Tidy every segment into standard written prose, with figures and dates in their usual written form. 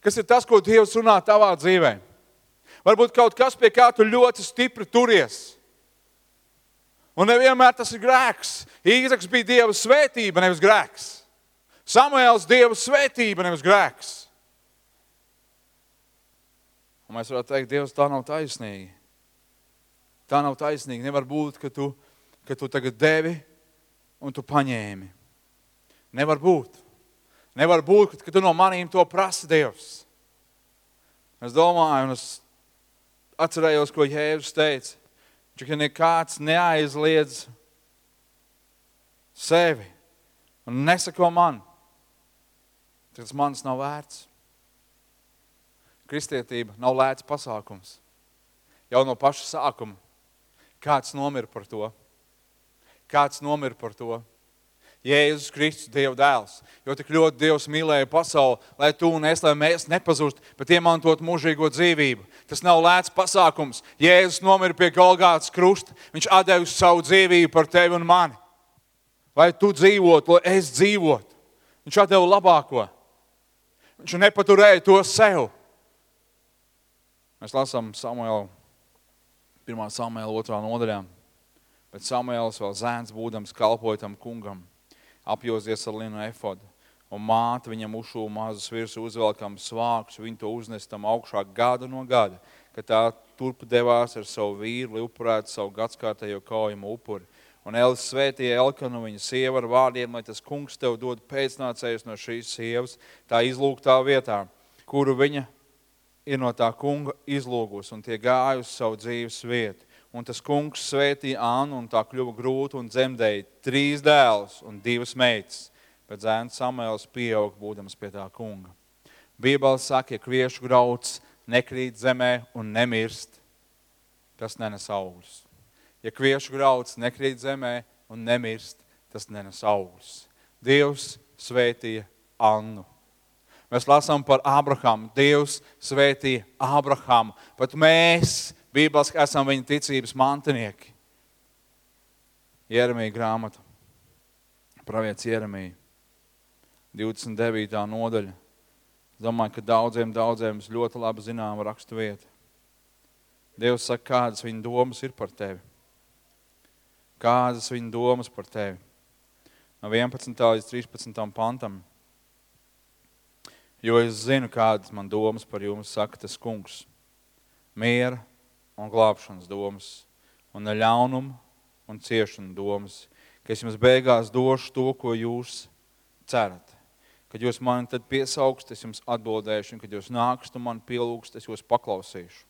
Kas ir tas, ko Dievs runā tavā dzīvē? Varbūt kaut kas, pie kā tu ļoti stipri turies. Un nevienmēr tas ir grēks. Īzaks bija Dieva svētība, nevis grēks. Samuēls Dieva svētība, nevis grēks. Un mēs varētu teikt, Dievs, tā nav taisnīgi. Tā nav taisnīgi. Nevar būt, ka tu tagad devi un tu paņēmi. Nevar būt. Nevar būt, ka tu no manīm to prasi, Dievs. Es domāju, un es atcerējos, ko Jēzus teica. Ka nekāds neaizliedz sevi un nesako man. Tas manis nav vērts. Kristietība nav lēts pasākums. Jau no paša sākuma. Kāds nomira par to? Kāds nomira par to? Jēzus Kristus, Dieva dēls. Jo tik ļoti Dievs mīlēja pasauli, lai tu un es, lai mēs nepazust, bet iemantot mūžīgo dzīvību. Tas nav lēts pasākums. Jēzus nomira pie Golgātas krusta. Viņš atdevis savu dzīvību par tevi un mani. Lai tu dzīvotu, lai es dzīvotu. Viņš atdeva labāko. Viņš nepaturēja to sev. Mēs lasām Samuēlu, 1. Samuēla 2. nodaļā. Bet Samuēls vēl zēns būdams kalpoja tam kungam, apjozies ar linu efodu. Un māte viņam uzšūva mazus virsū uzvelkam svākus, viņi to uznestam augšā gada no gada, kad tā turp devās ar savu vīru, lai upurētu savu gadskārtējo kaujumu upuri. Un Elis svētīja Elkanu, viņa sieva ar vārdiem, lai tas kungs tev dod pēcnācējus no šīs sievas, tā izlūgtā vietā, kuru viņa ir no tā kunga izlūgus, un tie gāja uz savu dzīves vietu. Un tas kungs svētīja Annu, un tā kļuva grūta un dzemdēja 3 dēlus un 2 meitas. Bet zēns Samuēls pieaug, būdams pie tā kunga. Bībele saka, ja kviešu grauds nekrīt zemē un nemirst, tas nenes augļus. Ja kviešu grauds nekrīt zemē un nemirst, tas nenes augļus. Dievs svētīja Annu. Mēs lasām par Abrahamu. Dievs svētīja Abrahamu. Pat mēs, Bībeles, esam viņa ticības mantinieki. Jeremija grāmata, pravietis Jeremija, 29. nodaļa. Es domāju, ka daudziem ļoti labi zinām rakstu vieta. Dievs saka, kādas viņa domas ir par tevi. Kādas viņa domas par tevi. No 11. līdz 13. pantam. Jo es zinu, kādas man domas par jums, saka tas kungs. Miera un glābšanas domas, un ne ļaunuma un ciešana domas, ka es jums beigās došu to, ko jūs cerat. Kad jūs mani tad piesaugst, es jums atbildēšu, un kad jūs nākst un mani pielūgst, es jūs paklausīšu.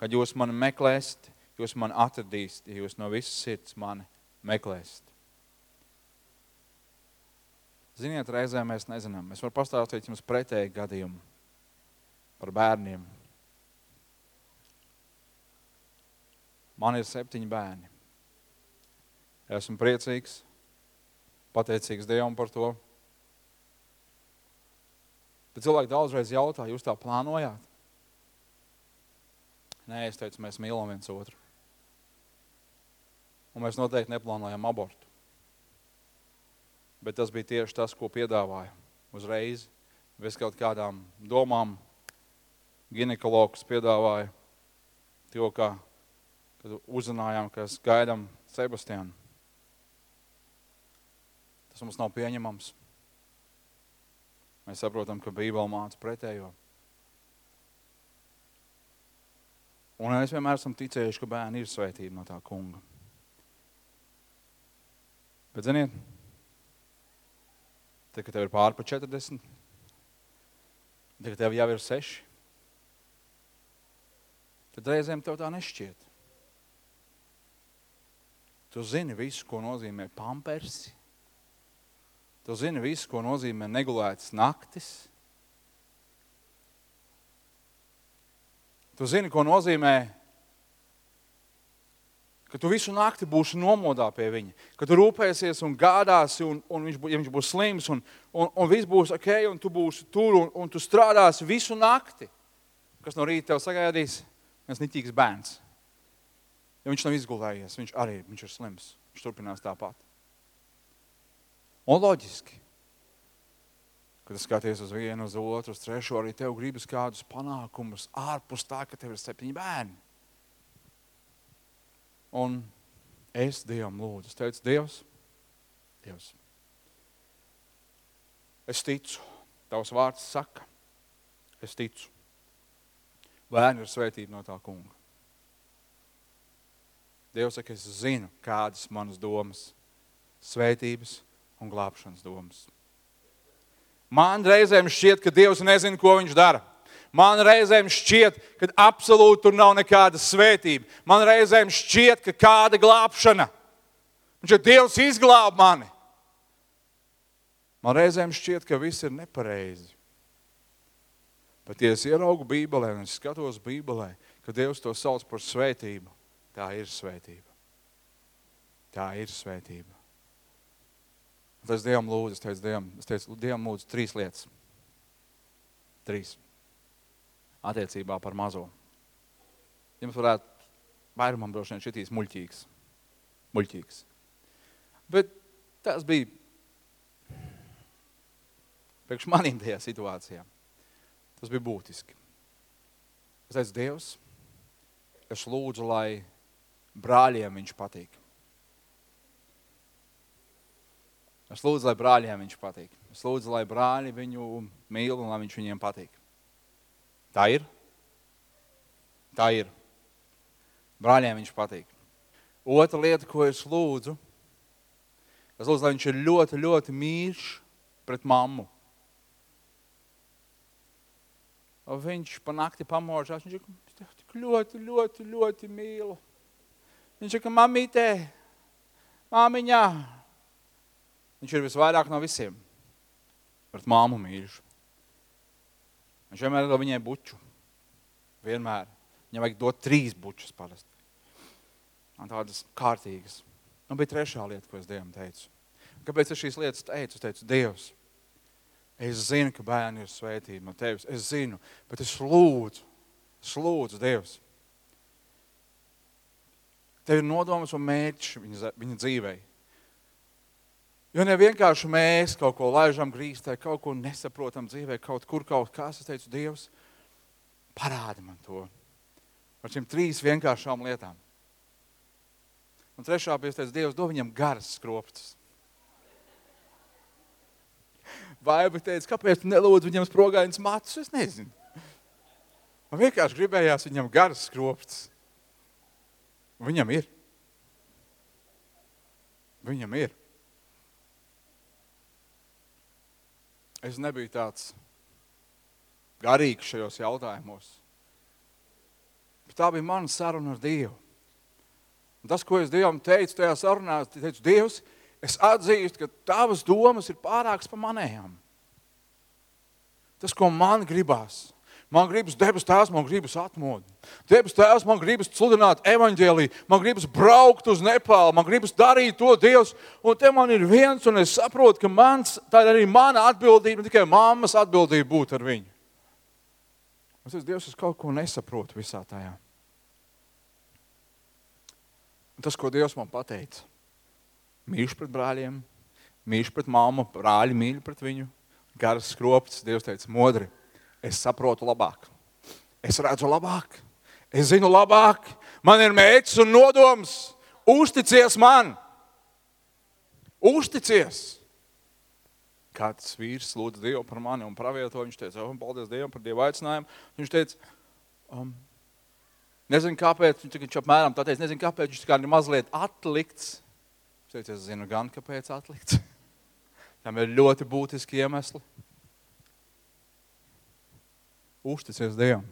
Kad jūs mani meklēsiet, jūs mani atradīsiet, ja jūs no visas sirds mani meklēsiet. Ziniet, reizē mēs nezinām. Es varu pastāstīt jums pretēju gadījumu par bērniem. Man ir 7 bērni. Esmu priecīgs, pateicīgs Dievam par to. Bet cilvēki daudzreiz jautā, jūs tā plānojāt? Nē, es teicu, mēs mīlam viens otru. Un mēs noteikti neplānojam abortu. Bet tas bija tieši tas, ko piedāvāja uzreiz. Bez kaut kādām domām ginekologs piedāvāja to, kad uzzinājām, ka gaidām Sebastianu. Tas mums nav pieņemams. Mēs saprotam, ka Bībele māca pretējo. Un mēs vienmēr esam ticējuši, ka bērni ir svētība no tā kunga. Bet ziniet, tad, kad tev ir pāri pa 40, tad, kad tev jau ir 6, tad reizēm tev tā nešķiet. Tu zini visu, ko nozīmē pampersi. Tu zini visu, ko nozīmē negulētas naktis. Tu zini, ko nozīmē, ka tu visu nakti būsi nomodā pie viņa, ka tu rūpēsies un gādāsi, un viņš būs slims, un viss būs ok, un tu būsi tur, un tu strādāsi visu nakti. Kas no rīta tev sagaidīs? Viens niķīgs bērns. Ja viņš nav izgulējies, viņš ir slims. Viņš turpinās tāpat. Un loģiski. kad skaties uz vienu, uz otru, uz trešo, arī tev gribas kādus panākumus ārpus tā, ka tev ir 7 bērni. Un es Dievam lūdzu. Es teicu, Dievs, es ticu, tavs vārds saka, es ticu. Bērni ir svētība no tā kunga. Dievs saka, es zinu, kādas manas domas, svētības un glābšanas domas. Man reizēm šķiet, ka Dievs nezina, ko viņš dara. Man reizēm šķiet, ka absolūti tur nav nekāda svētība. Man reizēm šķiet, ka kāda glābšana. Viņš ir Dievs izglāb mani. Man reizēm šķiet, ka viss ir nepareizi. Bet, ja es ieraugu Bībelē un es skatos Bībelē, ka Dievs to sauc par svētību, tā ir svētība. Tā ir svētība. Un es Dievam lūdzu, es teicu, Dievam lūdzu 3 lietas. 3. Attiecībā par mazo. Jums varētu vairumam droši vien šitīs muļķīgs. Bet tas bija priekš manīm tajā situācijā. Tas bija būtiski. Es teicu, Dievs, es lūdzu, lai brāļiem viņš patīk. Es lūdzu, lai brāļiem viņš patīk. Es lūdzu, lai brāļi viņu mīl un lai viņš viņiem patīk. Tā ir? Tā ir. Brāļiem viņš patīk. Otra lieta, ko es lūdzu, lai viņš ir ļoti, ļoti mīļš pret mammu. Un viņš pa nakti pamožās, viņš ir tik ļoti, ļoti, ļoti mīlu. Viņš ir, ka mamītē, māmiņā. Viņš ir visvairāk no visiem pret māmu mīļš. Viņš vienmēr dod viņai buču. Vienmēr. Viņam vajag dot 3 bučus parasti. Un tādas kārtīgas. Un bija 3. lieta, ko es Dievam teicu. Kāpēc es šīs lietas teicu? Es teicu, Dievs, es zinu, ka bērni ir svētība no tevis. Es zinu, bet es lūdzu, Dievs. Tev ir nodomas un mērķis viņa dzīvei. Jo ne vienkārši mēs kaut ko laižam grīstē, kaut ko nesaprotam dzīvē, kaut kas. Es teicu, Dievs, parādi man to. Ar šīm 3 vienkāršām lietām. Un 3. bija, es teicu, Dievs, dod viņam garas skropstas. Vaiba teica, kāpēc tu nelūdzu viņam sprogainas matus? Es nezinu. Man vienkārši gribējās viņam garas skropstas. Viņam ir. Viņam ir. Es nebiju tāds garīgs šajos jautājumos. Bet tā bija mana saruna ar Dievu. Un tas, ko es Dievam teicu tajā sarunā, es teicu, Dievs, es atzīstu, ka tavas domas ir pārākas par manējām. Tas, ko man gribās. Man gribas debes tēvs, man gribas atmodu. Debes tēvs, man gribas sludināt evaņģēliju, man gribas braukt uz Nepālu, man gribas darīt to, Dievs. Un te man ir viens, un es saprotu, ka tā ir arī mana atbildība, ne tikai mammas atbildība būt ar viņu. Es teicu, Dievs, es kaut ko nesaprotu visā tajā. Un tas, ko Dievs man pateica, mīļš pret brāļiem, mīļš pret mammu, brāļi mīļ pret viņu, garas skropstas, Dievs teica, modri. Es saprotu labāk. Es redzu labāk. Es zinu labāk. Man ir mērķis un nodoms. Uzticies man. Uzticies. Kāds vīrs lūdza Dievu par mani un pravieto. Viņš teica, paldies Dievam par Dievu aicinājumu. Viņš teica, nezinu kāpēc, viņš apmēram tā teica, nezinu kāpēc, viņš kā ir mazliet atlikts. Viņš teica, es zinu gan, kāpēc atlikts. Tam ir ļoti būtiski iemesli. Uzticies Dievam.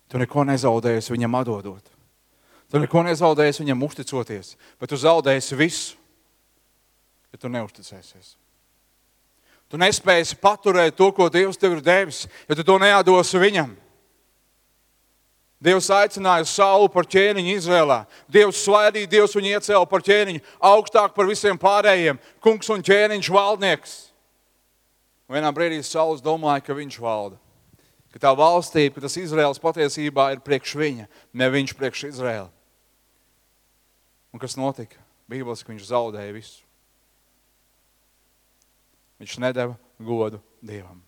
Tu neko nezaudēsi viņam atdodot. Tu neko nezaudēsi viņam uzticoties, bet tu zaudēsi visu, ja tu neuzticēsies. Tu nespēsi paturēt to, ko Dievs tev ir devis, ja tu to neatdosi viņam. Dievs aicināja Saulu par ķēniņu Izrēlā. Dievs svaidīja, Dievs viņu iecēla par ķēniņu, augstāk par visiem pārējiem, kungs un ķēniņš valdnieks. Vienā brīdī Sauls domāja, ka viņš valda. Ka tā valstība, ka tas Izraels patiesībā ir priekš viņa, ne viņš priekš Izraela. Un kas notika? Bībeliski viņš zaudēja visu. Viņš nedeva godu Dievam.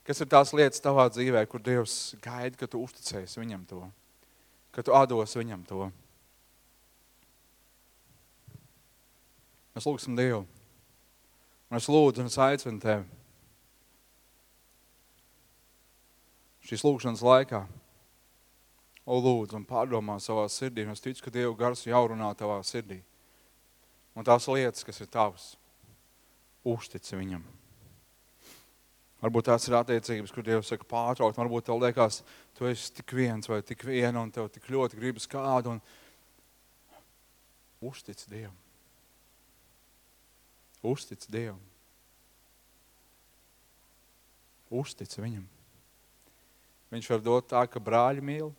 Kas ir tās lietas tavā dzīvē, kur Dievs gaida, ka tu uzticēsi viņam to, ka tu atdos viņam to? Mēs lūgsim Dievu. Un es lūdzu un es aicinu tevi šīs lūgšanas laikā. Lūdzu un pārdomā savā sirdī. Un es ticu, ka Dieva gars jau runā tavā sirdī. Un tās lietas, kas ir tavas, uztici viņam. Varbūt tās ir attiecības, kur Dievs saka pārtraukt. Varbūt tev liekas, tu esi tik viens vai tik viena un tev tik ļoti gribas kādu. Un uztici Dievam. Uztici Dievam. Uztici viņam. Viņš var dot tā, ka brāļi mīl,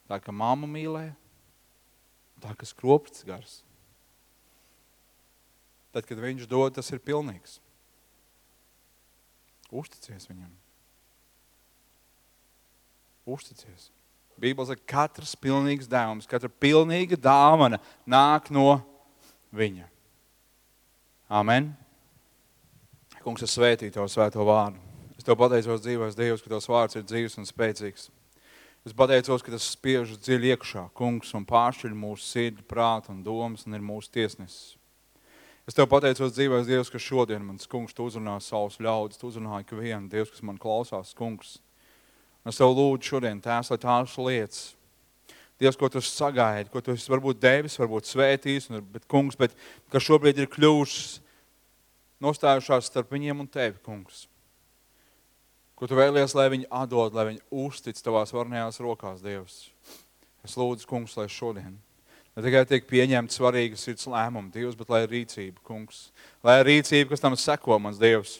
tā, ka mamma mīlē, tā, ka skropsts gars. Tad, kad viņš dod, tas ir pilnīgs. Uzticies viņam. Uzticies. Bībele saka, katrs pilnīgs dāvums, katra pilnīga dāvana nāk no viņa. Amen. Kungs, es svētīju Tavu svēto vārdu. Es Tev pateicos dzīvais Dievs, ka Tavs vārds ir dzīvs un spēcīgs. Es pateicos, ka tas spiež dziļi iekšā, Kungs, un pāršķiļ mūsu sirdi, prātu un domas un ir mūsu tiesnesis. Es Tev pateicos dzīvais Dievs, ka šodien, mans Kungs, Tu uzrunā savus ļaudis, Tu uzrunā ikvienu, Dievs, kas man klausās, Kungs. Un es Tev lūdzu šodien, Tēvs, lai tās lietas, Dievs, ko Tu sagaidi, ko Tu esi varbūt devis, varbūt svētījis, bet, Kungs, bet ka šobrīd ir kļuvušas nostājušās starp viņiem un Tevi, Kungs. Ko Tu vēlies, lai viņi atdod, lai viņi uztic Tavās varnējās rokās, Dievs. Es lūdzu, Kungs, lai šodien ne tikai tiek pieņemt svarīgi sirds lēmumi, Dievs, bet lai ir rīcība, Kungs. Lai ir rīcība, kas tam seko, mans Dievs.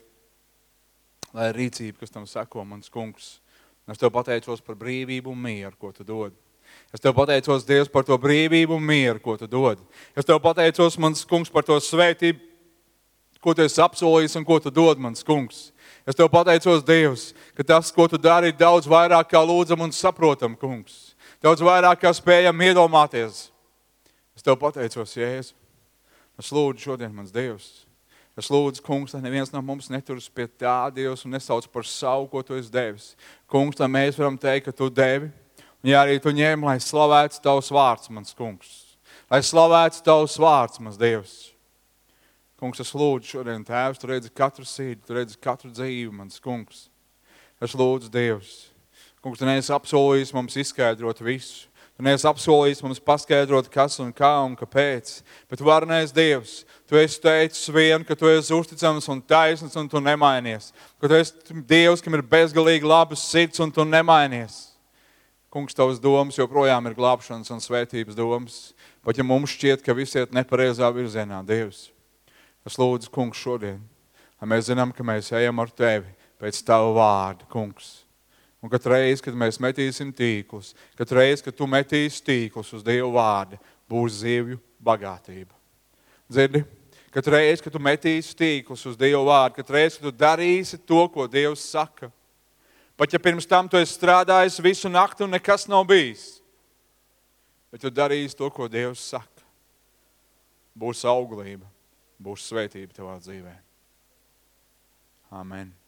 Lai ir rīcība, kas tam seko, mans Kungs. Es Tev pateicos par brīvību un mieru, ko Tu dod. Es Tev pateicos, Dievs, par to brīvību un mieru, ko Tu dod. Es Tev pateicos, mans Kungs, par to svētību, ko Tu esi apsolījis un ko Tu dod, mans Kungs. Es Tev pateicos, Dievs, ka tas, ko Tu dari, ir daudz vairāk kā lūdzam un saprotam, Kungs. Daudz vairāk kā spējam iedomāties. Es Tev pateicos, Jēzu. Es lūdzu šodien, mans Dievs. Es lūdzu, Kungs, lai neviens no mums neturas pie tā, Dievs, un nesauc par savu, ko Tu esi devis. Kungs, lai mēs varam teikt, ka Tu devi. Un ja arī Tu ņem, lai slavētu Tavs vārds, mans Kungs. Lai slavētu Tavs vārds, mans Dievs. Kungs, es lūdzu šodien, Tēvs, Tu redzi katru sīdi, Tu redzi katru dzīvi, mans Kungs. Es lūdzu, Dievs. Kungs, Tu neesi apsolījis mums izskaidrot visu. Tu neesi apsolījis mums paskaidrot, kas un kā un kāpēc. Bet varnais Dievs, Tu esi teicis vien, ka Tu esi uzticams un taisns un Tu nemainies. Ka Tu esi Dievs, kam ir bezgalīgi labas sirds un Tu nemainies. Kungs, Tavas domas joprojām ir glābšanas un svētības domas. Pat ja mums šķiet, ka visi iet nepareizā virzienā, Dievs. Es lūdzu, Kungs, šodien, lai mēs zinām, ka mēs ejam ar Tevi pēc Tava vārda, Kungs. Un katru reizi, kad mēs metīsim tīklus, katru reizi, kad Tu metīsi tīklus uz Dievu vārda, būs zivju bagātība. Dzirdi? Katru reizi, kad Tu metīsi tīklus uz Dievu vārdu, katru reizi, kad Tu darīsi to, ko Dievs saka. Pat ja pirms tam Tu esi strādājis visu nakti un nekas nav bijis, bet Tu darīsi to, ko Dievs saka. Būs auglība, būs svētība Tavā dzīvē. Amen.